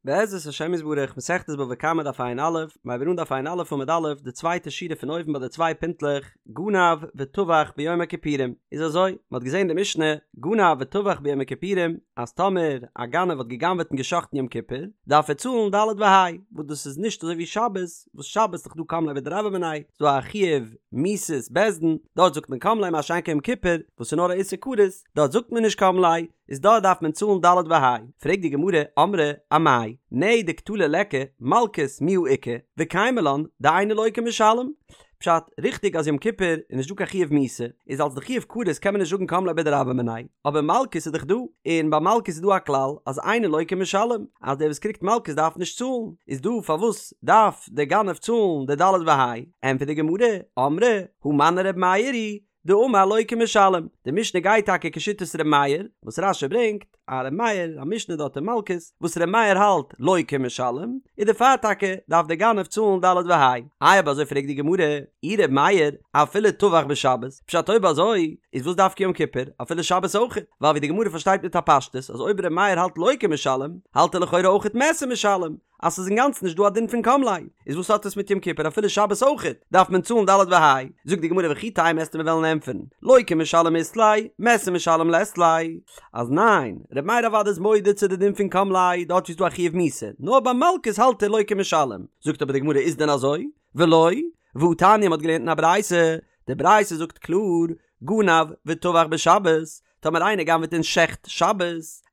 בעזרת השם יתברך, מסכת בבא קמא דף ע"א, מ'הייבט אן דף ע"א עמוד א', די צווייטע שורה פון אויבן ביי די צוויי פינטלעך, גנב וטבח ביום הכיפורים, איז אזוי, מ'האט געזען די משנה, גנב וטבח ביום הכיפורים, אז טאמער א גנב האט גע'גנב'עט און גע'שחט'ן יום כיפור, דארף ער צאלן ד' וה', וואס דאס איז נישט אזוי ווי שבת, וואס שבת איז דאך דא קם ליה בדרבה מיניה, ס'איז דא א חיוב מיתת בית דין, דארט זאגט מען קם ליה מה שאין כן יום כיפור, וואס איז נאר א איסור כרת, דארט זאגט מען נישט קם ליה, איז דארט דארף מען צאלן ד' וה'. פרעגט די גמרא, אמרי אמאי, נהי דקטלא ליכא, מלקות מיהא איכא, וקיימא לן דאינו לוקה ומשלם. פשט, ריכטיג אז יום כיפור איז נישט דא קיין חיוב מיתה, איז אלס די חיוב כרת קען מען נישט זאגן קם ליה בדרבה מיניה, אבער מלקות איז דאך דא, און ביי מלקות איז דא א כלל אז אינו לוקה ומשלם, אז דער וואס קריגט מלקות דארף נישט צאלן, איז דא פארוואס דארף דער גנב צאלן די ד' וה'? ענטפערט די גמרא, אמרי, הא מני ר' מאיר היא, דאמר לוקה ומשלם, די משנה גייט טאקע כשיטת ר' מאיר, וואס רש"י ברענגט, א ר' מאיר, א משנה דארט אין מלקות, וואס ר' מאיר האלט לוקה ומשלם, איז דערפאר טאקע דארף דער גנב צאלן ד' וה'. איי אויב אזוי פרעגט די גמרא, אי ר' מאיר, אפילו טבח בשבת, פשט אויב אזוי, איז וואס דווקא יום כיפור, אפילו שבת אויכעט, ווייל ווי די גמרא פארשטייט מיט א פשטות אז אויב ר' מאיר האלט לוקה ומשלם, האלט ער לכאורה אויכעט מת ומשלם, אז ס'איז אינגאנצן נישט דא א דין פון קם ליה, איז וואס האט עס מיט יום כיפור אפילו שבת אויכעט דארף מען צאלן ד' וה', זאגט די גמרא וכי תימא וועסטו מיר וועלן ענטפערן, לוקה ומשלם אית ליה, מת ומשלם לית ליה, אז ניין, ר' מאיר אוודאי איז מודה צו די דין פון קם ליה דארט ווי ס'איז דא א חיוב מיתה, נאר ביי מלקות האלט ער לוקה ומשלם, זאגט אבער די גמרא איז דען אזוי? ולא, והתניא מ'האט געלערנט אין א ברייתא, די ברייתא זאגט קלאר, גנב וטבח בשבת, טאמער איינער גנב'עט און שעכט שבת,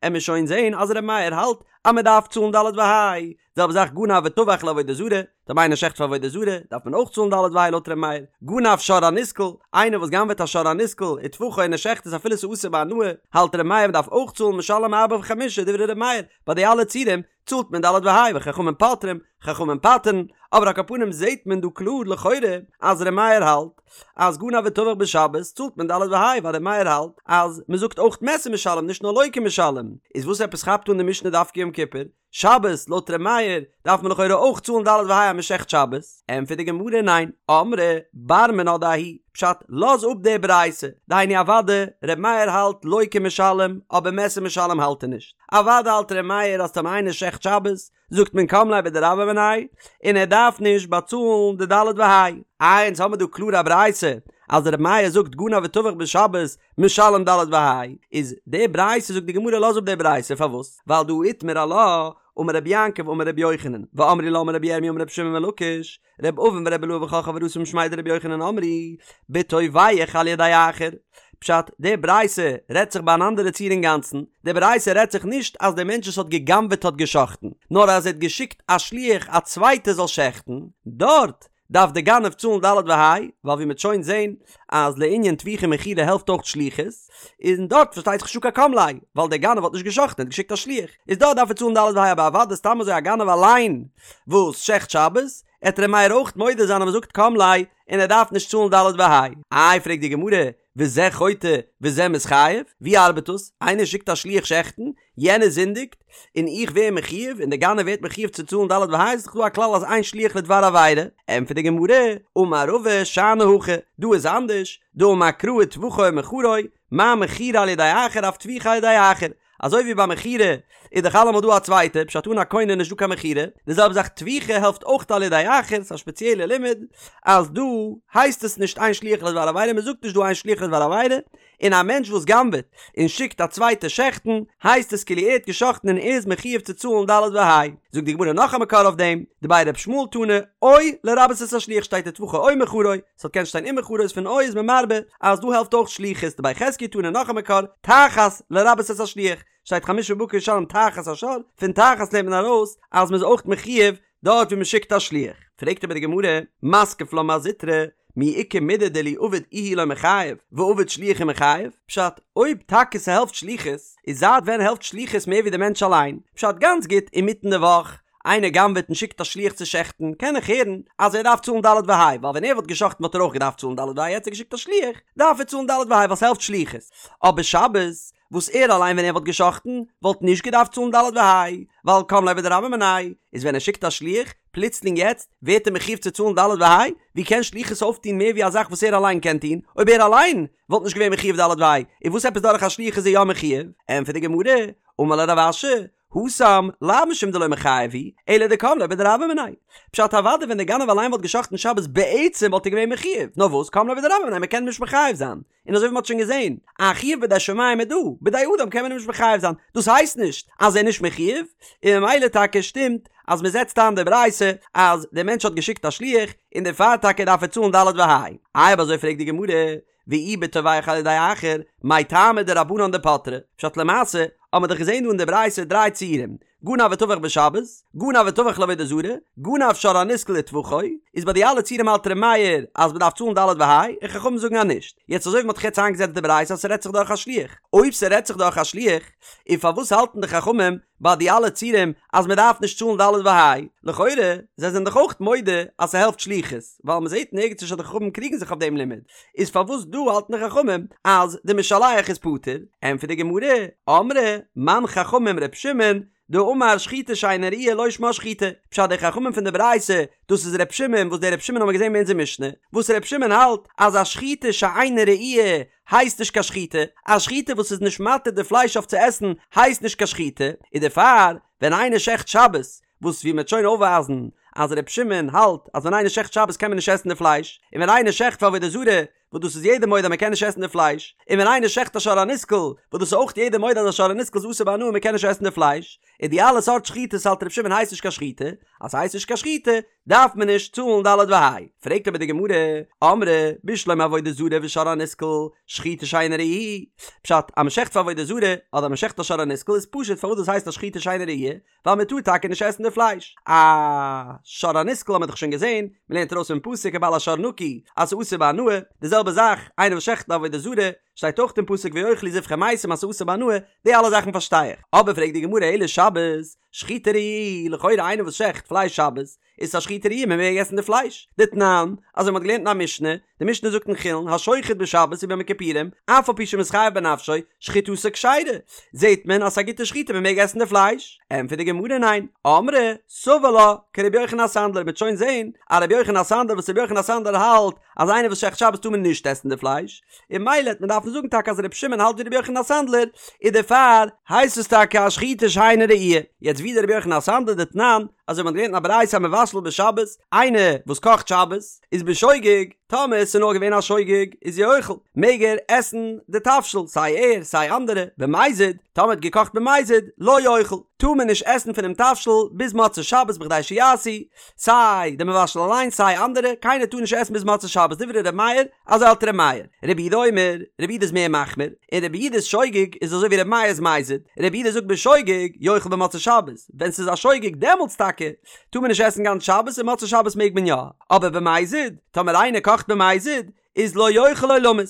עמיר שוין זעהן אז ר' מאיר האלט אז מען דארף צאלן ד' וה', זעלבע זאך גנב וטבח לעבודה זרה, טאמער איינער שעכט פאר עבודה זרה, דארף מען אויך צאלן ד' וה' לויט ר' מאיר, גנב שור הנסקל, איינער וואס גנב'עט א שור הנסקל וטבחו און ער שעכט עס אפילו ס'איז אסור בהנאה, האלט ר' מאיר מען דארף אויך צאלן משלם ארבעה וחמישה דברי ר' מאיר, ביי די אלע ציורים צאלט מען ד' וה' וחכמים פוטרים, חכמים פטר'ן, אבער על כל פנים זעהט מען דא קלאר לכאורה אז ר' מאיר האלט אז גנב וטבח בשבת צאלט מען ד' וה' ווייל ר' מאיר האלט אז מען זאגט אויך מת ומשלם נישט נאר לוקה ומשלם, איז וואס עפעס כאפט אן די משנה דווקא יום כיפור? שבת לויט ר' מאיר דארף מען לכאורה אויך צאלן ד' וה' אז מען שעכט שבת, ענטפערט די גמרא ניין, אמרי בר מינה דההיא, פשט, לאז אפ די ברייתא, דהיינו אוודאי ר' מאיר האלט לוקה ומשלם אבער מת ומשלם האלט ער נישט, אוודאי האלט ר' מאיר אז טאמער איינער שעכט שבת זאגט מען קם ליה בדרבה מיניה און ער דארף נישט באצאלן די ד' וה'. איי אונז האמיר דא קלאר א ברייתא אז ר' מאיר זאגט גנב וטבח בשבת משלם ד' וה', איז די ברייתא זאגט די גמרא לאז אפ די ברייתא פארוואס ווייל דהא איתמר עלה אמר רבי יעקב אמר רבי יוחנן ואמרי לה אמר רבי ירמי' אמר רבי שמעון בן לקיש ר' אבין ור' אילעא וכל חבורתא משמיה דרבי יוחנן אמרי בטובח על ידי אחר. פשט, די ברייתא רעדט זיך ביי אן אנדערע ציור אינגאנצן, די ברייתא רעדט זיך נישט אז דער מענטש וואס האט גע'גנב'עט האט גע'שחט'ן, נאר אז ער האט געשיקט א שליח א צווייטער זאל שעכטן, דארט דארף דער גנב צאלן ד' וה', ווייל ווי מ'וועט שוין זען אז לענין טביחה ומכירה העלפט אויך שליחות, און דארט פארשטייט זיך נישטא קיין קם ליה, ווייל דער גנב האט נישט גע'שחט'ן ער האט געשיקט א שליח, איז דארט דארף ער צאלן ד' וה' אבער אוודאי סתם אזוי א גנב אליין וואס שעכט שבת, עט ר' מאיר אויך מודה זיין אז מ'זאגט קם ליה און ער דארף נישט צאלן ד' וה'. איי פרעגט די גמרא, וזה חוטא וזה מתחייב? ווי ארבעט דאס? איינער שיקט א שליח שעכטן, יענער זינדיגט, און איך ווער מחויב, און דער גנב ווערט מחויב צו צאלן ד' וה', איז דאך דא א כלל אז אין שליח לדבר עבירה. ענטפערט די גמרא, אמר רבא שאני הכא, דא איז אנדערש, דאמר קרא וטבחו או מכרו, מה מכירה על ידי אחר אף טביחה על ידי אחר, אזוי ווי ביי מכירה איז דאך אלעמאל דא א צווייטער, פשט אן א קונה איז נישטא קיין מכירה, די זעלבע זאך טביחה העלפט אויך על ידי אחר, ס'איז א שפעציעלע לימוד אז דא הייסט עס נישט אין שליח לדבר עבירה, מ'זאגט נישט דא אין שליח לדבר עבירה, און א מענטש וואס גנב'עט און שיקט א צווייטער שעכטן, הייסט עס כאילו ער האט געשאכטן און ער איז מחויב צו צאלן ד' וה'. זאגט די גמרא נאך א מקור אויף דעם, דבי ר' ישמעאל תנא, או לרבות את השליח שטייט וטבחו או מכרו, ס'האט קענט שטיין ומכרו איז פון או איז מען מרבה אז דא העלפט אויך שליחות דבי חזקיה תנא נאך א מקור תחת לרבות את השליח שטייט חמשה בקר ישלם תחת השור פון תחת לערנט מען ארויס אז מ'איז אויך מחויב דארט ווי מ'שיקט א שליח פרעגט אבער די גמרא מתקיף לה מר זוטרא מי איכא מידי דאילו עביד איהו לא מיחייב ועביד שליח ומיחייב פשט אויב טאקע ס'העלפט שליחות איז זייט ווען העלפט שליחות מער ווי די מענטש אליין פשט גאנץ גוט אינמיטן די וואך איינער גנב'עט און שיקט א שליח צו שעכטן, קען איך הערן אז ער דארף צאלן ד' וה', ווייל ווען ער וואלט געשאכטן וואלט ער אויך געדארפט צאלן ד' וה', יעצט האט ער געשיקט א שליח, דארף ער צאלן ד' וה' ווייל ס'העלפט שליחות. אבער שבת, וואס ער אליין ווען ער וואלט געשאכטן, וואלט נישט געדארפט צאלן ד' וה', ווייל קם ליה בדרבה מיניה, איז ווען ער שיקט א שליח, פלוצלינג יעצט, ווערט ער מחויב צו צאלן ד' וה'? ווי קען שליחות אויפטון מער ווי א זאך וואס ער אליין קען טון, אויב ער אליין וואלט נישט געווען מחויב ד' וה', איז וואס עפעס דורך א שליח איז ער יא מחויב? ענטפערט די גמרא, אמר ליה רב אשי, התם לאו משום דלא מיחייב הוא, אלא דקם ליה בדרבה מיניה. פשט אוודאי ווען דער גנב אליין וואלט גע'שחט'ן שבת בעצם וואלט ער געווען מחיוב, נאר וואס קם ליה בדרבה מיניה מ'קען אים נישט מחייב זיין, און אזוי ווי מ'האט שוין געזען, א חיוב בידי שמים איז דא, בידי אדם קען מען אים נישט מחייב זיין, דאס הייסט נישט אז ער איז נישט מחיוב, און ממילא טאקע שטימט אז מ'זעצט איין די ברייתא אז דער מענטש האט געשיקט א שליח און דערפאר טאקע דארף ער צאלן ד' וה'. איי אויב אזוי פרעגט די גמרא, ואי בטובח על ידי אחר, מאי טעמא דרבנן דפטרי, פשט למעשה האט מען דאך געזען דא אין די ברייתא דריי ציורים, גנב וטבח בשבת, גנב וטבח לעבודה זרה, גנב שור הנסקל וטבחו, איז ביי די אלע ציורים האלט ר' מאיר אז מ'דארף צאלן ד' וה', און חכמים זאגן אז נישט. יעצט אזוי ווי מ'האט דאך יעצט איינגעזעצט די ברייתא אז ס'רעדט זיך דורך א שליח, אויב ס'רעדט זיך דורך א שליח, און פארוואס האלטן די חכמים ביי די אלע ציורים אז מ'דארף נישט צאלן ד' וה'? לכאורה, זיי זענען דאך אויך מודה אז ס'העלפט שליחות, ווייל מ'זעט נערגעץ נישט אז די חכמים קריגן זיך אויף דעם לימוד, איז פארוואס דא האלטן די חכמים אז די משלח איז פטור? ענטפערט די גמרא, אמרי מאן חכמים ר' שמעון דאמר שחיטה שאינה ראויה לא שמה שחיטה, פשט די חכמים פון די ברייתא דאס איז ר' שמעון וואס דער ר' שמעון האבן מיר געזען ביי אונזער משנה, וואס ר' שמעון האלט אז א שחיטה שאינה ראויה הייסט נישט קיין שחיטה, א שחיטה וואס איז נישט מתיר די פלייש אויף צו עסן הייסט נישט קיין שחיטה, און דערפאר ווען איינער שעכט שבת וואס ווי מ'וועט שוין אויפווייזן אז ר' שמעון האלט אז ווען איינער שעכט שבת קען מען נישט עסן די פלייש, און ווען איינער שעכט פאר עבודה זרה, וואס דאס איז יעדער מודה אז מ'קען נישט עסן די פלייש, און ווען איינער שעכט א שור הנסקל, וואס דאס איז אויך יעדער מודה אז א שור הנסקל איז אסור בהנאה און מ'קען נישט עסן די פלייש, און די אלע סארט שחיטות האלט ר' שמעון הייסט נישט קיין שחיטה, אז ס'הייסט נישט קיין שחיטה דארף מען נישט צאלן ד' וה'. פרעגט אבער די גמרא, אמרי בשלמא עבודה זרה ושור הנסקל, שחיטה שאינה ראויה, פשט, אז מ'שעכט פאר עבודה זרה, אדער מ'שעכט א שור הנסקל איז פשוט פארוואס דאס הייסט א שחיטה שאינה ראויה, ווייל מען טאר טאקע נישט עסן די פלייש. א שור הנסקל האט מען דאך שוין געזען, מען לערנט ארויס פון פסוק ובעל השור נקי אז ס'איז אסור בהנאה, די זעלבע זאך איינער וואס שעכט עבודה זרה, שטייט אויך אין פסוק ויאכלו זבחי מתים אז ס'איז אסור בהנאה, די אלע זאכן פארשטיי איך. אבער פרעגט די גמרא אלא שבת, שחיטה ראויה, לכאורה איינער וואס שעכט פלייש שבת, איז א שחיטה ראויה מען מעג עסן די פלייש. דתנן, אזוי מען האט געלערנט אין א משנה, די משנה זאגט אין חולין, השוחט בשבת וביום הכיפורים, אף על פי שמתחייב בנפשו, שחיטתו כשרה. זעט מען אז ס'איז א גוטע שחיטה מען מעג עסן די פלייש. ענטפערט די גמרא ניין, אמרי, סבר לה, כרבי יוחנן הסנדלר, מ'וועט שוין זען א רבי יוחנן הסנדלר וואס רבי יוחנן הסנדלר האלט אז איינער וואס שעכט שבת טאר מען נישט עסן די פלייש, און ממילא העט מען דארפן זאגן טאקע אז רבי שמעון האלט ווי רבי יוחנן הסנדלר, און דערפאר הייסט עס טאקע א שחיטה שאינה ראויה. יעצט ווי איז דער רבי יוחנן הסנדלר דתנן, אזוי ווי מ'האט געלערנט אין א ברייתא המבשל בשבת, איינער וואס קאכט שבת, איז בשוגג, טאמער עס איז נאר געווען א שוגג, איז יאכל, מעג ער עסן די תבשיל, סיי ער, סיי אנדערע, במזיד, טאמער האט געקאכט במזיד, לא יאכל, טאר מען נישט עסן פונעם תבשיל ביז מוצאי שבת בכדי שיעשו, סיי די מבשל אליין סיי אנדערע, קיינער טאר נישט עסן ביז מוצאי שבת, דברי ר' מאיר, אזוי האלט ר' מאיר. רבי יהודה אומר, רבי יהודה איז מער מחמיר, און רבי יהודה'ס שוגג איז אזוי ווי ר' מאיר'ס מזיד, רבי יהודה זאגט בשוגג יאכל במוצאי שבת, ווען ס'איז א שוגג דעמאלטס טאקע טאר מען נישט עסן גאנץ שבת און מוצאי שבת מעג מען יא, אבער במזיד, טאמער איינער קאכט במזיד, איז לא יאכל עולמית,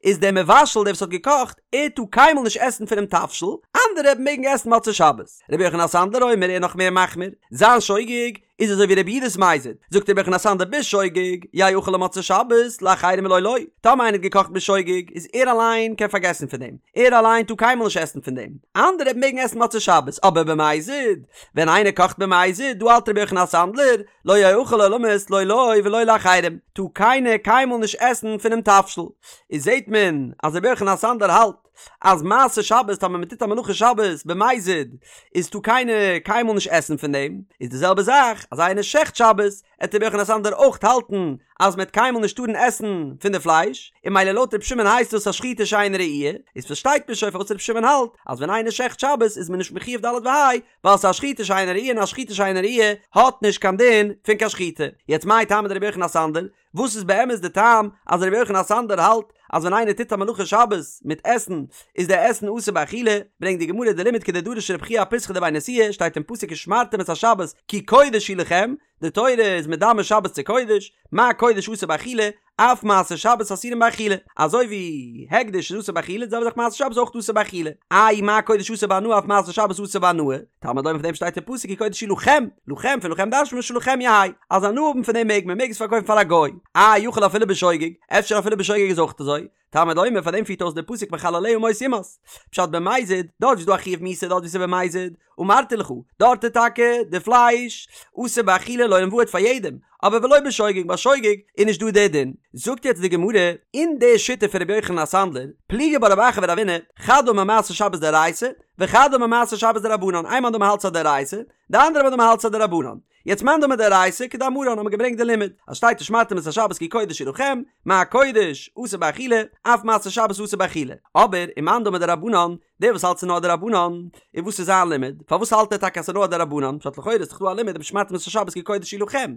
איז דער מבשל דער וואס האט געקאכט, ער טאר קיינמאל נישט עסן פונעם תבשיל, אנדערע מעגן עסן מוצאי שבת. רבי יוחנן הסנדלר אומר ער איז נאך מער מחמיר, זיין שוגג איז אזוי ווי רבי יהודה'ס מזיד, זאגט רבי יוחנן הסנדלר בשוגג, יאכל למוצאי שבת, לאחרים לא לו, טאמער איינער האט געקאכט בשוגג, איז ער אליין קען פארגעסן פון דעם, ער אליין טאר קיינמאל נישט עסן פון דעם, אנדערע מעגן עסן מוצאי שבת, אבער במזיד, ווען איינער קאכט במזיד, דא האלט רבי יוחנן הסנדלר, לא יאכל עולמית לא לו ולא לאחרים, טאר קיינער קיינמאל נישט עסן פונעם תבשיל, איז זעט מען אז רבי יוחנן הסנדלר האלט אז מעשה שבת טאמער מען טוט א מלאכה שבת במזיד איז טאר קיינער קיינמאל נישט עסן פון דעם, איז די זעלבע זאך אז איינער שעכט שבת עט רבי יוחנן הסנדלר אויך האלטן אז מען עט קיינמאל נישט טארן עסן פון די פלייש, און ממילא לויט רבי שמעון הייסט דאס א שחיטה שאינה ראויה, איז פארשטייט מען שוין פארוואס רבי שמעון האלט אז ווען איינער שעכט שבת איז מען נישט מחויב ד' וה' ווייל ס'איז א שחיטה שאינה ראויה און א שחיטה שאינה ראויה האט נישט קיין דין פון קיין שחיטה. יעצט מאי טעמא דרבי יוחנן הסנדלר, וואס איז באמת די טעם אז רבי יוחנן הסנדלר האלט אז ווען איינער טוט א מלאכה שבת מיט עסן איז די עסן אסור באכילה, ברענגט די גמרא די לימוד כדדרש רב חייא אפיתחא דבי נשיאה, שטייט אין פסוק ושמרתם את השבת כי קודש היא לכם, די תורה איז מדמה שבת צו קודש, מה קודש אסור באכילה, אף מעשה שבת אסורים באכילה, אזוי ווי הקדש איז אסור באכילה, די זעלבע זאך מעשה שבת איז אויך אסור באכילה. איי מה קודש אסור בהנאה אף מעשה שבת אסור בהנאה, תלמוד לומר פון דעם שטייט אין פסוק כי קודש היא לכם, לכם פון לכם דרש'נט מען שלכם יהא, אז הנאה האבן פון דעם מעג מען, מעג עס פארקויפן פאר א גוי. איי יכול אפילו בשוגג, אפשר אפילו בשוגג איז אויך אזוי, תלמוד לומר פאר דעם פירט אויס דער פסוק מחלליה מות יומת. פשט במזיד, דארט ווי ס'איז דא א חיוב מיתה דארט ווי ס'איז במזיד, אמרתי לך, דארט איז טאקע די פלייש אסור באכילה לעולם ועד פאר יעדעם, אבער ולא בשוגג ביי שוגג איז נישט דא דער דין. זאגט יעצט די גמרא, אין די שיטה פון רבי יוחנן הסנדלר, פליגי בה רב אחא ורבינא, חד אמר מעשה שבת דאורייתא, וחד אמר מעשה שבת דרבנן, איין מאן דאמר האלט ס'איז א דאורייתא, די אנדערע מאן דאמר האלט ס'איז א דרבנן. יעצט מאן דאמר דאורייתא כדאמרן האט מען געברענגט די לימוד אז שטייט ושמרתם את השבת כי קודש היא לכם, מה קודש אסור באכילה, אף מעשה שבת אסור באכילה. אבער ומאן דאמר דרבנן, דער וואס האלט ס'איז נאר א דרבנן, און וואס איז זיין לימוד? פארוואס האלט ער טאקע אז ס'איז נאר א דרבנן? פשט לכאורה איז דאך דא א לימוד ושמרתם את השבת כי קודש היא לכם.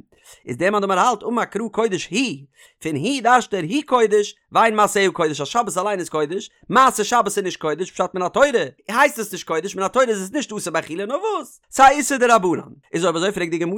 איז דער מאן דאמר האלט אמר קרא קודש היא, פון היא דרש'ט ער היא קודש, ואין מעשיה קודש אז שבת אליין איז קודש, מעשה שבת איז נישט קודש, פשט מן התורה הייסט עס נישט קודש, מן התורה איז עס נישט אסור באכילה נאר וואס? ס'איז א איסור דרבנן. איז אויב אזוי פרעגט די גמרא,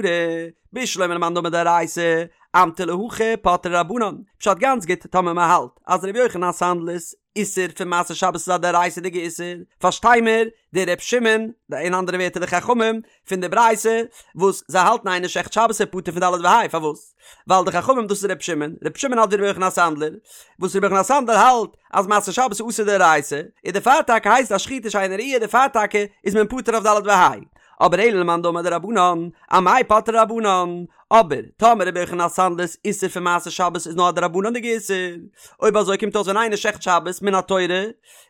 בשלמא למאן דאמר דאורייתא, אמטו להכי פטרי רבנן, פשט גאנץ גוט טאמער מ'האלט אז ר' יוחנן הסנדלר'ס איסור פון מעשה שבת איז א דאורייתא'דיגע איסור, פארשטיי מיר די ר' שמעון, אין אנדערע ווערטער די חכמים פון די ברייתא, וואס זיי האלטן איינער שעכט שבת איז פטור פון ד' וה', פארוואס? ווייל די חכמים דאס איז ר' שמעון, ר' שמעון האלט ווי ר' יוחנן הסנדלר, וואס ר' יוחנן הסנדלר האלט אז מעשה שבת איז אסור דאורייתא, און דערפאר טאקע הייסט א שחיטה שאינה ראויה דערפאר טאקע איז מען פטור אויף ד' וה'. אבער אלא למאן דאמר דרבנן, אמאי פטרי רבנן? אבער טאמער רבי יוחנן הסנדלר'ס איסור פון מעשה שבת איז נאר א דרבנן'דיגע איסור, אויב אזוי קומט אויס ווען איינער שעכט שבת מן התורה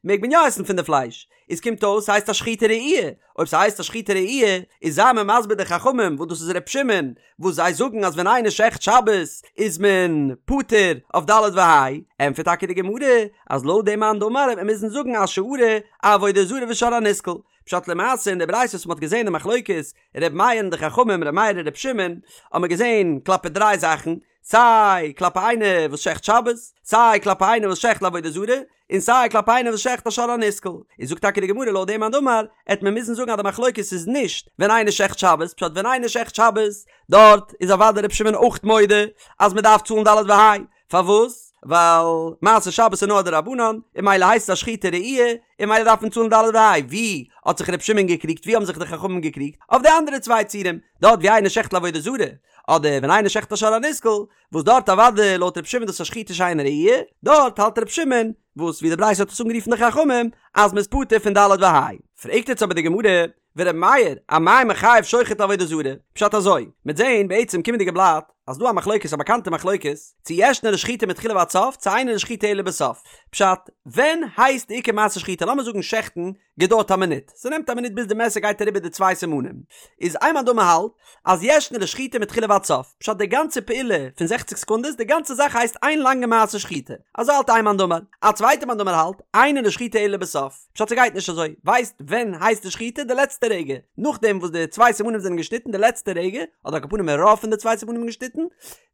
מעג מען יא עסן פון די פלייש, איז קומט אויס ס'הייסט א שחיטה ראויה, אויב ס'הייסט א שחיטה ראויה איז זיי מיר מסביר די חכמים וואס דאס איז ר' שמעון וואס זיי זאגן אז ווען איינער שעכט שבת איז מען פטור אויף ד' וה', ענטפערט טאקע די גמרא אז לויט דעם מאן דאמר וועט מען מוזן זאגן אשארא אעבודה זרה ושור הנסקל, פשט למעשה אין די ברייתא וואס מ'האט געזען די מחלוקת ר' מאיר און די חכמים ר' מאיר און ר' שמעון האט מען געזען כלפי דריי זאכן, סיי כלפי איינער וואס שעכט שבת, סיי כלפי איינער וואס שעכט לעבודה זרה, און סיי כלפי איינער וואס שעכט א שור הנסקל. איז זאגט טאקע די גמרא לויט דעם מאן דאמר, עט מען מוזן זאגן אז די מחלוקת איז נישט ווען איינער שעכט שבת, פשט ווען איינער שעכט שבת דארט איז אוודאי ר' שמעון אויך מודה אז מען דארף צאלן ד' וה', פארוואס? ווייל מעשה שבת איז נאר א דרבנן, און ממילא הייסט עס א שחיטה ראויה, און ממילא דארף מען צאלן ד' וה'. ווי האט זיך ר' שמעון געקריגט? ווי האבן זיך די חכמים געקריגט? אויף די אנדערע צוויי ציורים, דארט ווי איינער שעכט לעבודה זרה, אדער ווען איינער שעכט א שור הנסקל, וואס דארט אוודאי לויט ר' שמעון דאס א שחיטה שאינה ראויה, דארט האלט ר' שמעון, וואס ווי די ברייתא האט עס אנגערופן די חכמים, אז מ'איז פטור פון ד' וה'. פרעגט יעצט אבער די גמרא, ור' מאיר, אמאי מחייב שוחט לעבודה זרה? פשט אזוי, מ'עט זעהן בעצם קומענדיגע בלאט, אז דא א מחלוקת א באקאנטע מחלוקת, צו ישנה לשחיטה מתחילה ועד סוף, צו אינה לשחיטה אלא בסוף. פשט, ווען הייסט די עיקר מעשה שחיטה? לאמיר זאגן שעכטן געדויערט א מינוט, ס'נעמט א מינוט ביז די מעסער גייט אריבער די צוויי סימנים, איז איין מאן דאמר האלט אז ישנה לשחיטה מתחילה ועד סוף, פשט די גאנצע פעולה פון זעכציק סעקונדעס, די גאנצע זאך הייסט איין לאנגע מעשה שחיטה, אזוי האלט איין מאן דאמר, א צווייטע מאן דאמר האלט, אינה לשחיטה אלא בסוף. פשט ס'גייט נישט אזוי, ווייסט ווען הייסט די שחיטה? די לעצטע רגע, נאכדעם וואס די צוויי סימנים זענען געשניטן די לעצטע רגע, אדער על כל פנים רוב פון די צוויי סימנים געשניטן,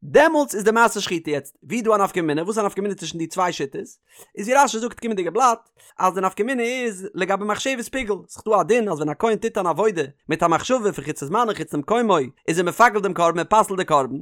דעמאלטס איז די מעשה שחיטה, יעצט ווי איז דא א נפקא מינה? וואס איז א נפקא מינה צווישן די צוויי שיטות? איז ווי רש"י זאגט קומענדיגע בלאט, אז די נפקא מינה איז לגבי מחשבת פיגול, ס'איז דא א דין אז ווען א כהן טוט אן עבודה מיט א מחשבה פון חוץ לזמנו חוץ למקומו איז ער מפגל דעם קרבן ער פסל'ט די קרבן,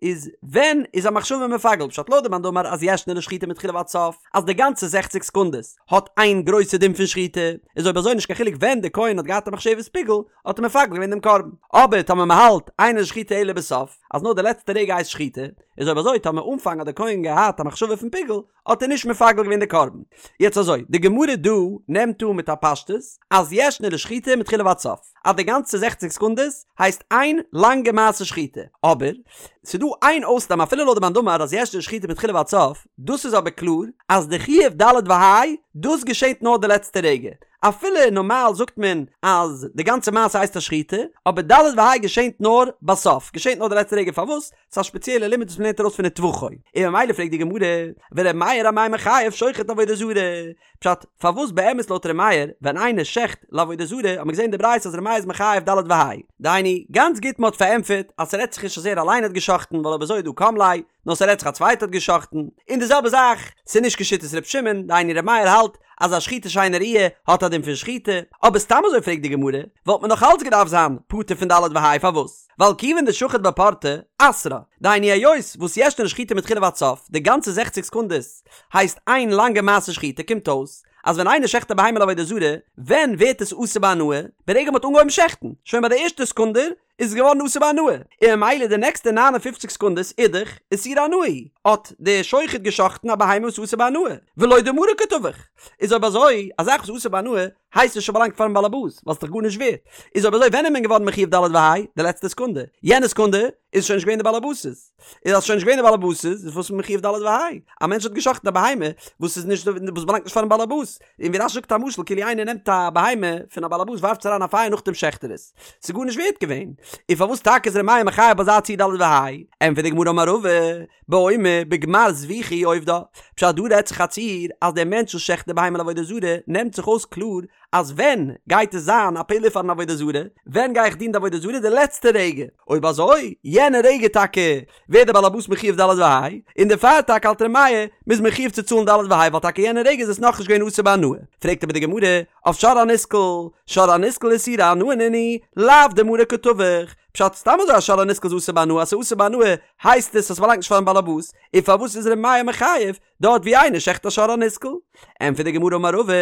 איז ווען איז א מחשבה מפגל? פשט לויט די מאן דאמר אז ישנה לשחיטה מתחילה ועד סוף, אז די גאנצע זעכציק סעקונדעס האט איין גרויסע דין פון שחיטה, איז אויב אזוי נישט קיין חילוק ווען די כהן האט געהאט א מחשבת פיגול האט ער מפגל געווען דעם קרבן. אבער טאמער מען האלט אינה לשחיטה אלא בסוף, אז נאר די לעצטע רגע הייסט שחיטה, איז אויב אזוי טאמער אנפאנג האט די כהן געהאט א מחשבה פון פיגול האט ער נישט מפגל געווען די קרבן. יעצט אזוי, די גמרא דא נעמט אן מיט א פשטות אז ישנה לשחיטה מתחילה ועד סוף, אז די גאנצע זעכציק סעקונדעס הייסט איין לאנגע מעשה שחיטה, אבער ס'דא איין אויסנאם אפילו לויט די מאן דאמר אז ישנה לשחיטה מתחילה ועד סוף, דאס איז אבער קלאר אז די חיוב ד' וה' דאס געשעט נאר די לעצטע רגע, אפילו נארמאל זאגט מען אז די גאנצע מעשה הייסט א שחיטה, אבער ד' וה' געשענט נאר בסוף, געשענט נאר די לעצטע רגע, פארוואס? ס'איז א שפעציעלע לימוד וואס מ'לערנט ארויס פון וטבחו, און ממילא פרעגט די גמרא, ור' מאיר אמאי מחייב שוחט לעבודה זרה? פשט, פארוואס באמת לויט ר' מאיר, ווען איינער שעכט לעבודה זרה, האט מען געזען אין די ברייתא אז ר' מאיר איז מחייב ד' וה'. דהיינו, גאנץ גוט מ'האט פארענטפערט אז ס'רעדט זיך נישט אז ער אליין האט געשאכטן ווייל אויב אזוי איז דא קם ליה, נאר ס'רעדט זיך א צווייטער האט געשאכטן, און די זעלבע זאך, ס'איז נישט כשיטת ר' שמעון, דהיינו ר' מאיר האלט אז א שחיטה שאינה ראויה האט א דין פון שחיטה, אבער סתם אזוי פרעגט די גמרא, וואלט מען נאך אלץ געדארפט זיין פטור פון ד' וה' פארוואס? ווייל כיוון דשחט בפורתא, אסרה, דהיינו היות וואס ישנה לשחיטה מתחילה ועד סוף, די גאנצע זעכציק סעקונדעס הייסט איין לאנגע מעשה שחיטה קומט אויס אז ווען איינער שעכט א בהמה לעבודה זרה, ווען ווערט עס אסור בהנאה? ברגע מ'האט אנגעהויבן שעכטן, שוין ביי די ערשטע סעקונדע איז עס געווארן אסור בהנאה, און ממילא די נעקסטע נײַן און פֿופֿציק סעקונדעס אידך איסור הנאה הוא, האט דער שוחט געשאכטן א בהמה וואס איז אסור בהנאה, ולא דמריה קא טבח, איז אויב אזוי, א זאך וואס איז אסור בהנאה, הייסט עס שוין באלאנגט פארן באלעבאס, ווייל ס'איז דאך גארנישט ווערט. איז אויב אזוי ווען איז מען געווארן מחויב ד' וה'? די לעצטע סעקונדע. יענע סעקונדע איז שוין נישט געווען די באלעבאס'ס. איז אז ס'שוין נישט געווען די באלעבאס'ס איז וואס איז מען מחויב ד' וה'? א מענטש האט גע'שחט'ן א בהמה וואס איז נישט וואס באלאנגט נישט פארן באלעבאס. און ווי רש"י זאגט א משל כאילו איינער נעמט א בהמה פון א באלעבאס ווארפט עס אריין א פייער נאכדעם שעכט ער עס. ס'איז גארנישט ווערט געווען. און פארוואס טאקע איז ר' מאיר מחייב ביי אזא ציור ד' וה'? ענטפערט די גמרא אמר רבא, באומר בגמר זביחה עובדה. פשט דא רעדט זיך א ציור אז דער מענטש וואס שעכט די בהמה לעבודה זרה נעמט זיך אויס קלאר אז ווען גייט עס זיין א פעולה פארן עבודה זרה, ווען גיי איך דינען די עבודה זרה די לעצטע רגע, אויב אזוי יענע רגע טאקע ווערט דער בעל הבית מחויב ד' וה', און דערפאר טאקע האלט ר' מאיר מ'איז מחויב צו צאלן ד' וה' ווייל טאקע יענע רגע איז עס נאכנישט געווען אסור בהנאה. פרעגט אבער די גמרא אויף שור הנסקל, שור הנסקל איסורי הנאה נינהו, לאו דמריה קא טבח, פשט סתם אזוי א שור הנסקל איז אסור בהנאה אז ס'איז אסור בהנאה הייסט עס אז ס'באלאנגט נישט פארן בעלעבאס, און פארוואס איז ר' מאיר מחייב דארט ווי איינער שעכט א שור הנסקל? ענטפערט די גמרא אמר רבא,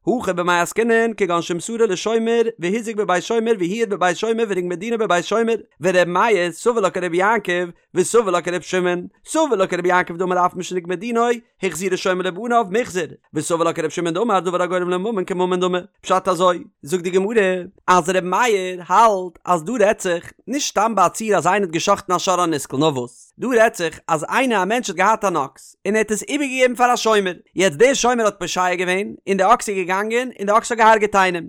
הכא במאי עסקינן כגון שמסרו לשומר והוזק בבית שומר והועד בבית שומר ונגמר דינו בבית שומר, ור' מאיר סבר לה כרבי יעקב וסבר לה כר' שמעון, סבר לה כרבי יעקב דאמר אף משנגמר דינו החזירו שומר לבעליו מוחזר, וסבר לה כר' שמעון דאמר דבר הגורם לממון כממון דמי. פשט אזוי, זאגט די גמרא, אז ר' מאיר האלט אז דא רעדט זיך נישט סתם ביי א ציור אז איינער האט גע'שחט'ן א שור הנסקל נאר וואס דא רעדט זיך אז איינער א מענטש האט געהאט אן אקס און ער האט עס איבערגעגעבן פאר א שומר יעצט דער שומר האט פושע געווען און די אקס איז געגאנגען און די אקס האט געהארגעט איינעם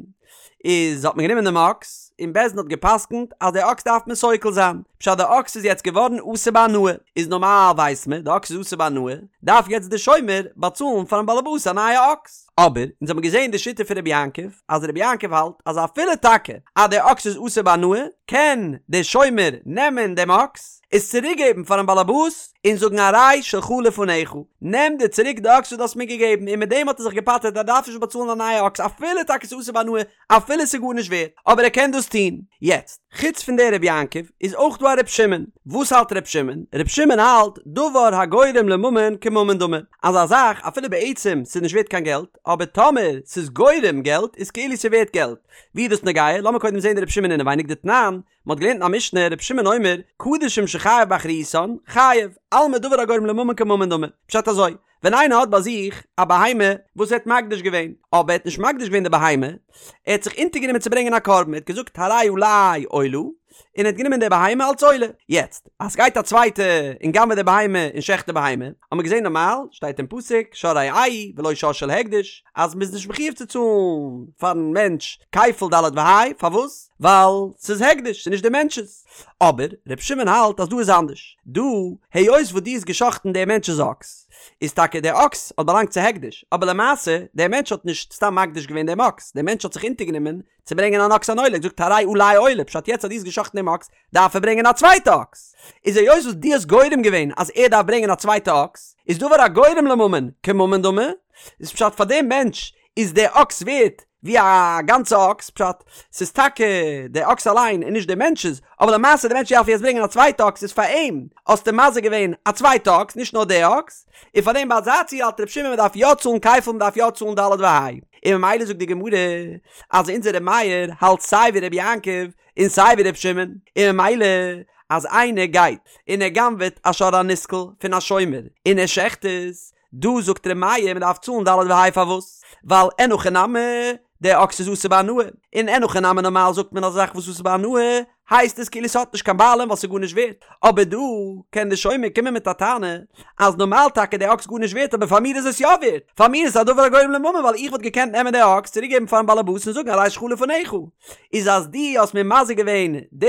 איז האט מען גענומען דעם אקס און בית דין האט געפסקנט אז די אקס דארף מען סוקל זיין פשט די אקס איז יעצט געווארן אסור בהנאה איז נארמאל ווייסט מען די אקס איז אסור בהנאה דארף יעצט די שומר באצאלן פארן באלעבאס א נייע אקס. אבער אונז האבן געזען די שיטה פון רבי יעקב אז רבי יעקב האלט אז אפילו טאקע אז די אקס איז אסור בהנאה קען די שומר נעמען דעם אקס עס צוריק געבן פארן באלעבאס און זאגן הרי שלך לפניך נעם דיר צוריק די אקס וואס דו האסט מיר געגעבן און מיט דעם האט ער זיך געפטר'ט ער דארף נישט באצאלן א נייע אקס אפילו טאקע ס'איז אסור בהנאה אפילו ס'איז גארנישט ווערט, אבער ער קען דאס טון. יעצט, חוץ פון דער רבי יעקב, איז אויך דא א ר' שמעון. וואס האלט ר' שמעון? ר' שמעון האלט, דבר הגורם לממון כממון דמי. אז א זאך, אפילו בעצם ס'איז נישט ווערט קיין געלט, אבער טאמער ס'איז גורם געלט, איז כאילו ס'איז ווערט געלט. ווי איז דאס נוגע? לאמיר קודם זען די ר' שמעון אינעווייניג דתנן, מ'האט געלערנט אין א משנה, ר' שמעון אומר, קדשים שחייב באחריותן, חייב, אלמא דבר הגורם לממון כממון דמי. פשט אזוי, ווען איינער האט ביי זיך א בהמה וואס ער האט מקדיש געווען, אבער ער האט נישט מקדיש געווען די בהמה, ער האט זיך אונטערגענומען צו ברענגען א קרבן, ער האט געזאגט הרי עלי עולה, און ער האט גענומען די בהמה אלס עולה. יעצט, אז ס'גייט א צווייטע און גנב'עט די בהמה און שעכט די בהמה, האט מען געזען נארמאל, שטייט אין פסוק, שור רעהו ולא שור של הקדש, אז מ'איז נישט מחויב צו צאלן פארן מענטש כפל ד' וה', פארוואס? ווייל ס'איז הקדש, ס'איז נישט די מענטש'ס. אבער ר' שמעון האלט אז דא איז אנדערש, דא היות וואס דו האסט גע'שחט'ן דער מענטש'ס אקס, איז טאקע דער אקס האט באלאנגט צו הקדש, אבער למעשה דער מענטש האט נישט סתם מקדיש געווען דעם אקס, דער מענטש האט זיך אונטערגענומען צו ברענגען אן אקס אן עולה, ער האט געזאגט הרי עלי עולה, פשט יעצט אז דו האסט גע'שחט'ן דעם אקס, דארף ער ברענגען א צווייטע אקס, איז היות וואס דו האסט גורם געווען אז ער דארף ברענגען א צווייטע אקס, איז דבר הגורם לממון כממון דמי, איז פשט פאר דעם מענטש איז דער אקס ווערט ווי א גאנצע אקס, פשט, ס'איז טאקע דער אקס אליין און נישט דער מענטש'ס, אבער למעשה דער מענטש דארף יעצט ברענגען א צווייטע אקס איז פאר אים האסטו מזיק געווען א צווייטע אקס נישט נאר דער אקס, און פאר דעם ביי אזא ציור האלט ר' שמעון מ'דארף יא צאלן כפל מ'דארף יא צאלן ד' וה', און ממילא זאגט די גמרא אז אונזער ר' מאיר האלט סיי ווי ר' יעקב און סיי ווי ר' שמעון, און ממילא אז איינער גייט און ער גנב'עט א שור הנסקל פון א שומר און ער שעכט עס, דא זאגט ר' מאיר מען דארף צאלן ד' וה' פארוואס? ווייל אין הכי נמי דער אקס איז אסור בהנאה, און אין הכי נמי נארמאל זאגט מען אז א זאך וואס איז אסור בהנאה הייסט עס כאילו ס'האט נישט קיין בעלים ווייל ס'איז גארנישט ווערט, אבער דא קען די שומר קומען מיט א טענה אז נארמאל טאקע דער אקס גארנישט ווערט אבער פאר מיר איז עס יא ווערט, פאר מיר איז עס א דבר הגורם לממון ווייל איך וואלט געקענט נעמען די אקס צוריק געבן פארן בעלעבאס און זאגן הרי שלך לפניך, איז אז דו האסט מיר מזיק געווען די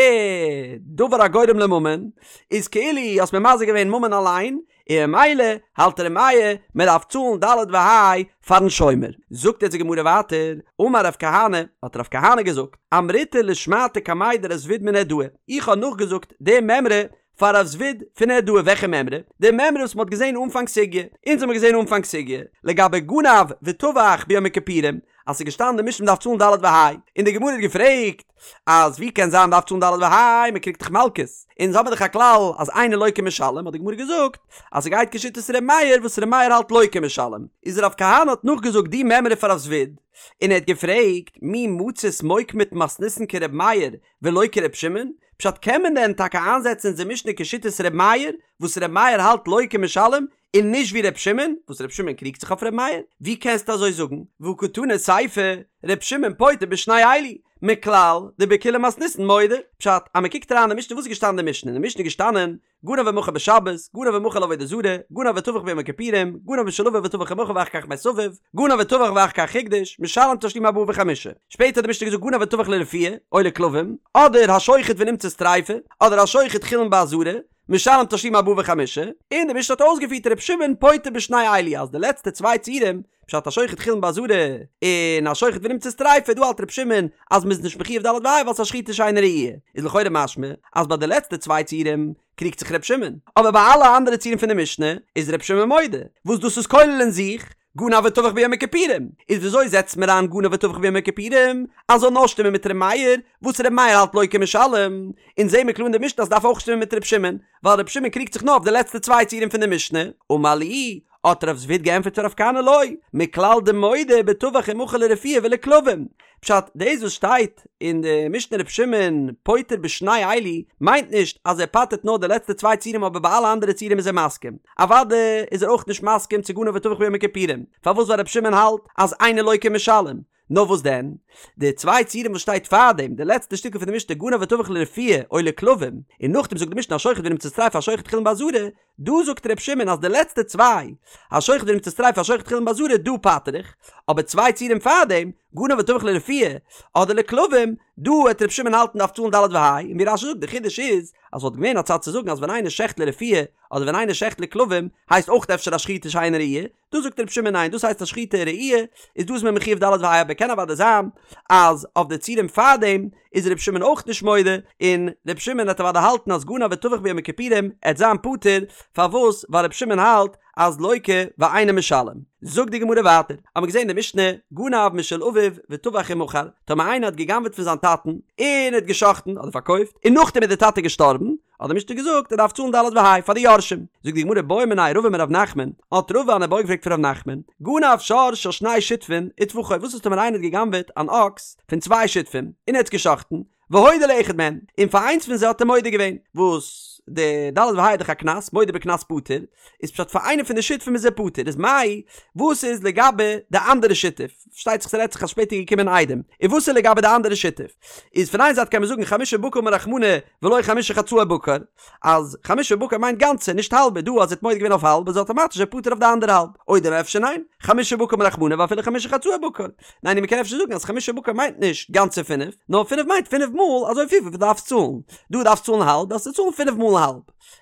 דבר הגורם לממון איז כאילו האסט מיר מזיק געווען ממון אליין, און ממילא האלט ר' מאיר מען דארף צאלן ד' וה' פארן שומר. זאגט יעצט די גמרא ווייטער, אמר רב כהנא, האט רב כהנא געזאגט, אמריתה לשמעתא קמיה דרב זביד מנהרדעא, איך האב נאכגעזאגט די מימרא פאר רב זביד פון נהרדעא, וועלכע מימרא? די מימרא וואס מען האט געזען אנפאנג סוגיא, אונז האמיר געזען אנפאנג סוגיא, לגבי גנב וטבח ביום הכיפורים, אז ס'איז געשטאנען אין די משנה מ'דארף צאלן ד' וה', און די גמרא האט געפרעגט, אז ווי קען זיין מ'דארף צאלן ד' וה', מ'קריגט דאך מלקות, אונז האבן דאך א כלל אז אינו לוקה ומשלם, האט די גמרא געזאגט אז ס'גייט כשיטת ר' מאיר וואס ר' מאיר האלט לוקה ומשלם, איז רב כהנא האט נאכגעזאגט די מימרא פאר רב זביד, און ער האט געפרעגט מי מצית מוקמת מתניתין כר' מאיר ולא כר' שמעון, פשט קען מען דען טאקע איינזעצן אונזער משנה כשיטת ר' מאיר, וואס ר' מאיר האלט לוקה ומשלם? און נישט ווי ר' שמעון, וואס ר' שמעון קריגט זיך אויף ר' מאיר? ווי קענסטו אזוי זאגן? והא קתני סיפא, ר' שמעון פוטר בשני אלו, מכלל דבכולה מתניתין מודה. פשט, אז מען קוקט אריין אין די משנה, וואס איז געשטאנען אין די משנה? אין די משנה איז געשטאנען, גנב ומכר בשבת, גנב ומכר לעבודה זרה, גנב וטבח ביום הכיפורים, גנב משל אביו וטבח ומכר ואחר כך מת אביו, גנב וטבח ואחר כך הקדיש, משלם תשלומי ארבעה וחמישה. שפעטער האט די משנה געזאגט גנב וטבח לרפואה, או לכלבים, אדער השוחט ונמצאת טריפה, אדער השוחט חולין בעזרה, משלם תשלומי ארבעה וחמישה, און די משנה האט אויסגעפירט ר' שמעון פוטר בשני אלו אז די לעצטע צוויי ציורים, פשט השוחט חולין בעזרה און השוחט ונמצאת טריפה, דא האלט ר' שמעון אז מ'איז נישט מחויב ד' וה' ווייל ס'איז א שחיטה שאינה ראויה, איז לכאורה משמע אז ביי די לעצטע צוויי ציורים קריגט זיך ר' שמעון, אבער ביי אלע אנדערע ציורים פון די משנה איז ר' שמעון מודה, וואס דאס איז כולל אין זיך גנב וטבח ביום הכיפורים, איז וויאזוי זעצט מען אריין גנב וטבח ביום הכיפורים אז זאל נאר שטימען מיט ר' מאיר, וואס ר' מאיר האלט לוקה ומשלם, אונז זעהן מיר קלאר אין די משנה אז ס'דארף אויך שטימען מיט ר' שמעון, ווייל ר' שמעון קריגט זיך נאר אויף די לעצטע צוויי ציורים פון די משנה, אמר להו, האט רב זביד געענטפערט פאר רב כהנא לא, מכלל דמודה בטבח ומכר לרפואה ולכלבים, פשט, דאס וואס שטייט אין די משנה ר' שמעון פוטר בשני אלו מיינט נישט אז ער פטר'ט נאר די לעצטע צוויי ציורים אבער ביי אלע אנדערע ציורים איז ער מסכים. אוודאי איז ער אויך נישט מסכים צו גנב וטבח ביום הכיפורים, פארוואס ווייל ר' שמעון האלט אז אינו לוקה ומשלם. נאר וואס דען? די צוויי ציורים וואס שטייט פארדעם, די לעצטע שטיקל פון די משנה גנב וטבח לרפואה או לכלבים, און נאכדעם זאגט די משנה השוחט ונמצאת טריפה השוחט חולין בעזרה, דא זאגט ר' שמעון אז די לעצטע צוויי, השוחט ונמצאת טריפה השוחט חולין בעזרה, דא פטר איך, אבער צוויי ציורים פארדעם, גנב וטבח לרפואה אדער לכלבים, דא העט ר' שמעון האלטן דארף צאלן ד' וה', און ווי רש"י זאגט די חידוש איז, אז וואלט געווען א צד צו זאגן אז ווען איינער שעכט לרפואה אדער ווען איינער שעכט לכלבים הייסט אויך אפשר א שחיטה שאינה ראויה, דא זאגט ר' שמעון ניין דאס הייסט א שחיטה ראויה, איז דא איז מען מחויב ד' וה' אבער קען אוודאי זיין אז אויף די ציורים פארדעם איז ר' שמעון אויך נישט מודה, און ר' שמעון העט אוודאי האלטן אז גנב וטבח ביום הכיפורים העט זיין פטור, פארוואס ווייל ר' שמעון האלט אז לוקה ואינו משלם. זאגט די גמרא ווייטער, האמיר געזען אין די משנה, גנב משל אביו וטבח ומכר, טאמער איינער האט גע'גנב'עט פון זיין טאטן, און האט גע'שחט'ן אדער פארקויפט, און נאכדעם איז די טאטע געשטארבן, האט די משנה געזאגט ער דארף צאלן ד' וה' פאר די יורשים. זאגט די גמרא בעא מיניה רבא מרב נחמן, האט רבא אן איבעיא געפרעגט פון רב נחמן, גנב שור של שני שותפין וטבחו, וואס איז טאמער איינער האט גע'גנב'עט אן אקס פון צוויי שותפים, און ער האט עס גע'שחט'ן, והודה לאחד מהן, און פאר איינס פון זיי האט ער מודה געווען, וואס די ד' וה' איז דאך א קנס, מודה בקנס פטור, איז פשט פאר איינע פון די שותפים איז ער פטור, איז מאי, וואס איז לגבי די אנדערע שותף, פארשטייט זיך ס'רעדט זיך אז שפעטער איז געקומען עדים, און וואס איז לגבי די אנדערע שותף, איז פון איין זייט קען מען זאגן חמשה בקר אמר רחמנא ולא חמשה חצאי בקר, אז חמשה בקר מיינט גאנצע, נישט האלבע, דא אז ער האט מודה געווען אויף האלב איז אטאמאטיש ער פטור אויף די אנדערע האלב, או דלמא אפשר ניין, חמשה בקר אמר רחמנא ואפילו חמשה חצאי בקר, ניין און מ'קען אפשר זאגן אז חמשה בקר מיינט נישט גאנצע פינף, נאר פינף מיינט פינף מאל אזוי פיל וויפיל דו דארפסט צאלן, דא דארפסט צאלן האלב דארפסטו צאלן פינף מאל האלב,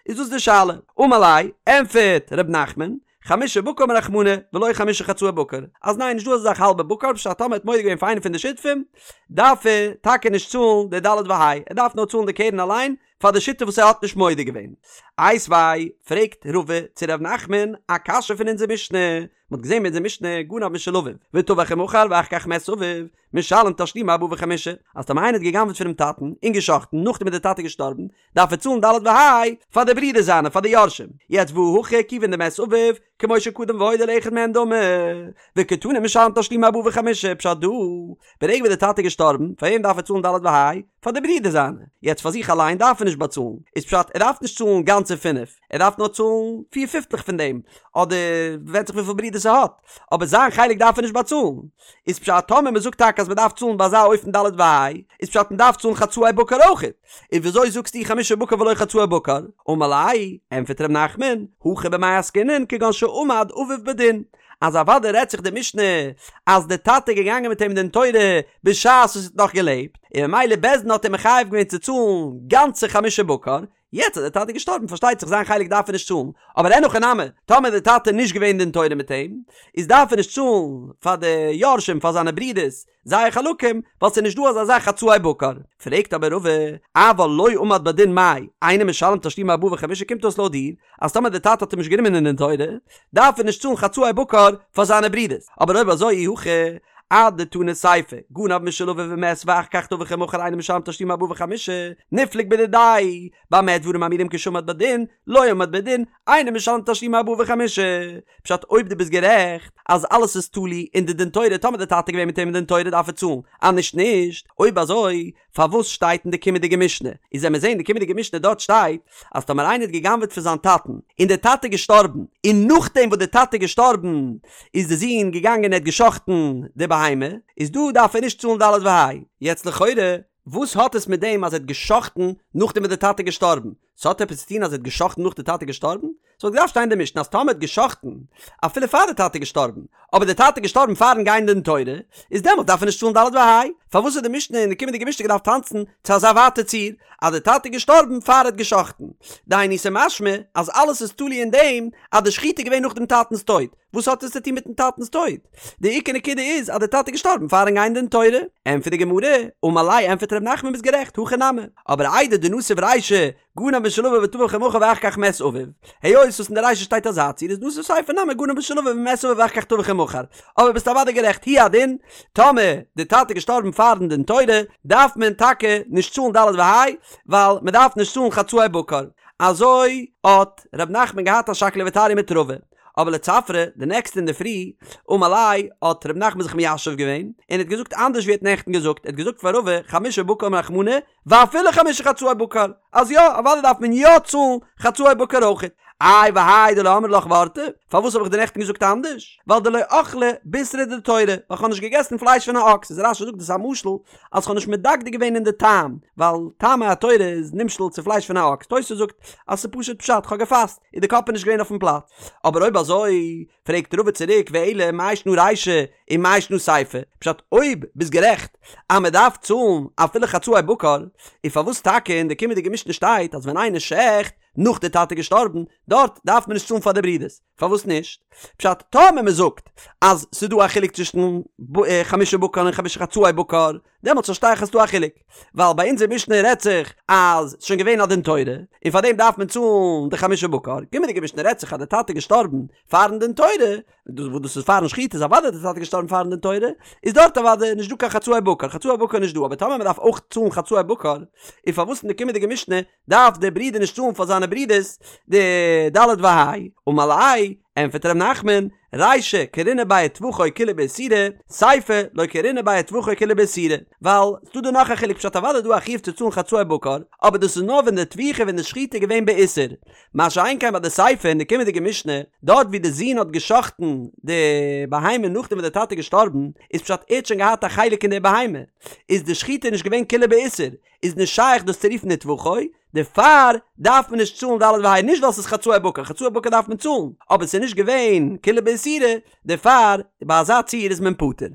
איז דאס די שאלה. אמר ליה, ענפערט ר' נחמן, חמשה בקר אמר רחמנא ולא חמשה חצאי בקר, אז ניין נישט דא אזא זאך האלבע בקר, פשט טאמער האט מודה געווען פאר איינער פון די שותפים, דארף ער טאקע נישט צאלן די ד' וה', ער דארף נאר צאלן די קרן אליין פאר די שותף וואס ער האט נישט מודה געווען. איתיביה, פרעגט רבא צו ר' נחמן א קשיא פון אונזער משנה, מען האט געזען אין אונזער משנה גנב משל אביו וטבח ומכר ואחר כך מת אביו משלם תשלומי ארבעה וחמישה, אז טאמער איינער האט גע'גנב'עט פונעם טאטן און גע'שחט'ן נאכדעם איז דער טאטע געשטארבן, דארף ער צאלן ד' וה' פאר די ברידער זיינע פאר די יורשים, יעצט והא הכא כיוון דמת אביו כמו שקדם והודה לאחד מהן דמי, וקתני משלם תשלומי ארבעה וחמישה, פשט דא, ברגע וואס דער טאטע איז געשטארבן, פאר וועם דארף ער צאלן ד' וה'? פאר די ברידער זיינע, יעצט פאר זיך אליין דארף ער נישט באצאלן, איז פשט ער דארף נישט צאלן גאנצע פינף, ער דארף נאר צאלן פיר פיפטלעך פון דעם, אדער ווענדט זיך וויפיל ברידערס ער האט, אבער זיין חלק דארף ער נישט באצאלן, איז פשט טאמער מען זאגט טאקע אז מען דארף צאלן ביי אזא אופן ד' וה', איז פשט מען דארף צאלן חצאי בקר אויכעט, און וויאזוי זאגסטו חמשה בקר ולא חצאי בקר? אמר ליה, ענטפערט ר' נחמן, הכא במאי עסקינן כגון שעמד אביו בדין, אז אוודאי רעדט זיך די משנה אז די טאטע איז געגאנגען מיט אים דין תורה בשעת וואס ער האט נאך געלעבט, און ממילא בית דין האט אים מחייב געווען צו צאלן גאנצע חמשה בקר, יעצט אז די טאטע איז געשטארבן פארשטייט זיך זיין חלק דארף ער נישט צאלן, אבער אין הכי נמי, טאמער די טאטע איז נישט געווען דין תורה מיט אים, איז דארף ער נישט צאלן פאר די יורשים פאר זיינע ברידערס זייער חלקים, ווייל ס'איז נישט דא אזא זאך חצאי בקר. פרעגט אבער רבא, אבל לא עמד בדין מאי, אינו משלם תשלומי ארבעה וחמישה קומט אויס לויט דיר, אז טאמער די טאטע האט אים נישט גענומען אין דין תורה, דארף ער נישט צאלן חצאי בקר פאר זיינע ברידערס, אבער אויב אזוי אי הכי. אדתני סיפא, גנב משל אביו ומת ואחר כך טבח ומכר אינו משלם תשלומי ארבעה וחמישה, ניפלוג בדידיה, במה דברים אמורים כשעמד בדין, לא עמד בדין, אינו משלם תשלומי ארבעה וחמישה. פשט אויב דו ביסט גערעכט אז אלעס איז תלוי אין די דין תורה טאמער די טאטע געווען מיט אים אין דין תורה דארף ער צאלן אז נישט נישט אויב אזוי פארוואס שטייט אין די קומענדיגע משנה איז ווען מיר זעהן די קומענדיגע משנה דארט שטייט אז טאמער איינער האט גע'גנב'עט פון זיין טאטן און די טאטע איז געשטארבן און נאכדעם וואס די טאטע איז געשטארבן איז די זון געגאנגען און ער האט גע'שחט'ן די בהמה איז דא דארף ער נישט צאלן ד' וה' יעצט לכאורה וואס האט עס מיט דעם אז ער האט גע'שחט'ן נאכדעם וואס די טאטע איז געשטארבן? ס'האט עפעס צו טון אז ער האט גע'שחט'ן נאך די טאטע איז געשטארבן? ס'וואלט געדארפט שטיין אין די משנה אז טאמער האט גע'שחט'ן אפילו פאר די טאטע איז געשטארבן, אבער די טאטע איז געשטארבן פארן גיין דין תורה, איז דעמאלט דארף ער נישט צאלן ד' וה'. פארוואס האט די משנה אין די קומענדיגע משנה געדארפט טאנצן צו אזא ווייטע ציור אז די טאטע איז געשטארבן פאר ער האט גע'שחט'ן? דהיינו ס'משמע אז אלעס איז תלוי אין דעם אז די שחיטה איז געווען נאך דעם טאטנ'ס טויט. וואס האט עס צו טון מיטן טאטנ'ס טויט? די עיקר נקודה איז אז די טאטע איז געשטארבן פארן גיין דין תורה. ענטפערט די גמרא, אמר ליה ענטפערט ר' נחמן ביסט גערעכט, הכי נמי, אבער איידי דנסיב רישא גנב משל אביו וטבח ומכר ואחר כך מת אביו, היות וואס אין די רישא שטייט אזא ציור איז נסיב סיפא נמי גנב משל אביו ומת אביו ואחר כך טבח ומכר, אבער ביסט אוודאי גערעכט הוא הדין, טאמער די טאטע איז געשטארבן פארן דין תורה דארף מען טאקע נישט צאלן ד' וה' ווייל מען דארף נישט צאלן חצאי בקר. אזוי האט ר' נחמן געהאט א שקלא וטריא מיט רבא. אבער לצפרא, די נעקסטע אינדערפרי, אמר ליה, האט ר' נחמן זיך מיישב געווען, און האט געזאגט אנדערש ווי ער האט נעכטן געזאגט, ער האט געזאגט פאר רבא, חמשה בקר אמר רחמנא, ואפילו חמשה חצאי בקר, אז יא, אוודאי דארף מען יא צאלן חצאי בקר אויכעט. איי והאי דלא אמרי לך וורתא, פארוואס האב איך דיר נעכטן געזאגט אנדערש? ווייל דלא אכלי בישרא דתורא, ווייל כ'האב נישט געגעסן פלייש פון א אקס, איז רש"י זאגט דאס איז א משל אז כ'האב נישט מדקדק געווען אין די טעם, ווייל טעמי התורה איז נמשל צו פלייש פון א אקס, תוס' זאגט אז ס'איז פשוט פשט, כ'האב געפאסט. איז די קאפ איז נישט געווען אויפן פלאץ. אבער אויב אזוי, פרעגט רבא צוריק ואלא מאי שנא רישא ומאי שנא סיפא, פשט אויב ביסט גערעכט אז מען דארף צאלן אפילו חצאי בקר, איז פארוואס טאקע אין די קומענדיגע משנה שטייט אז ווען איינער שעכט נאך די טאטע געשטארבן, דארט דארף מען נישט צאלן פאר די ברידערס? פארוואס נישט? פשט טאמער מען זאגט אז ס'איז דא א חילוק צווישן חמשה בקר און חמשה חצאי בקר, דעמאלטס פארשטיי איך אז ס'דא א חילוק, ווייל ביי אונזער משנה רעדט זיך אז ס'שוין געווען א דין תורה, און פאר דעם דארף מען צאלן די חמשה בקר, קומענדיגע משנה רעדט זיך אז די טאטע איז געשטארבן פארן דין תורה, וואס דאס איז פארן שחיטה איז אוודאי די טאטע געשטארבן פארן דין תורה, איז דארט אוודאי נישט דא קיין חצאי בקר, חצאי בקר איז נישט דא, אבער טאמער מ'דארף אויך צאלן חצאי בקר, איז פארוואס אין די קומענדיגע משנה דארף דער ברודער נישט צאלן פאר זיינע ברודערס די ד' וה'? אמר ליה, ענטפערט ר' נחמן, רישא קרינא ביה וטבחו כולה באיסורא, סיפא לא קרינא ביה וטבחו כולה באיסורא, ווייל ס'דא דא נאך א חילוק פשט אוודאי איז דא א חיוב צו צאלן חצאי בקר, אבער דאס איז נאר ווען די טביחה ווען די שחיטה איז געווען באיסור, מה שאין כן ביי די סיפא אין די קומענדיגע משנה, דארט ווי די זון האט גע'שחט'ן די בהמה נאכדעם וואס די טאטע איז געשטארבן, איז פשט ער האט שוין געהאט א חלק אין די בהמה, איז די שחיטה נישט געווען כולה באיסור, איז נישט שייך דאס צו רופן וטבחו, דערפאר דארף מען נישט צאלן ד' וה', נישט ווייל ס'איז חצאי בקר, חצאי בקר דארף מען צאלן, אבער ס'איז נישט געווען כולה באיסורא, דערפאר ביי אזא ציור איז מען פטור.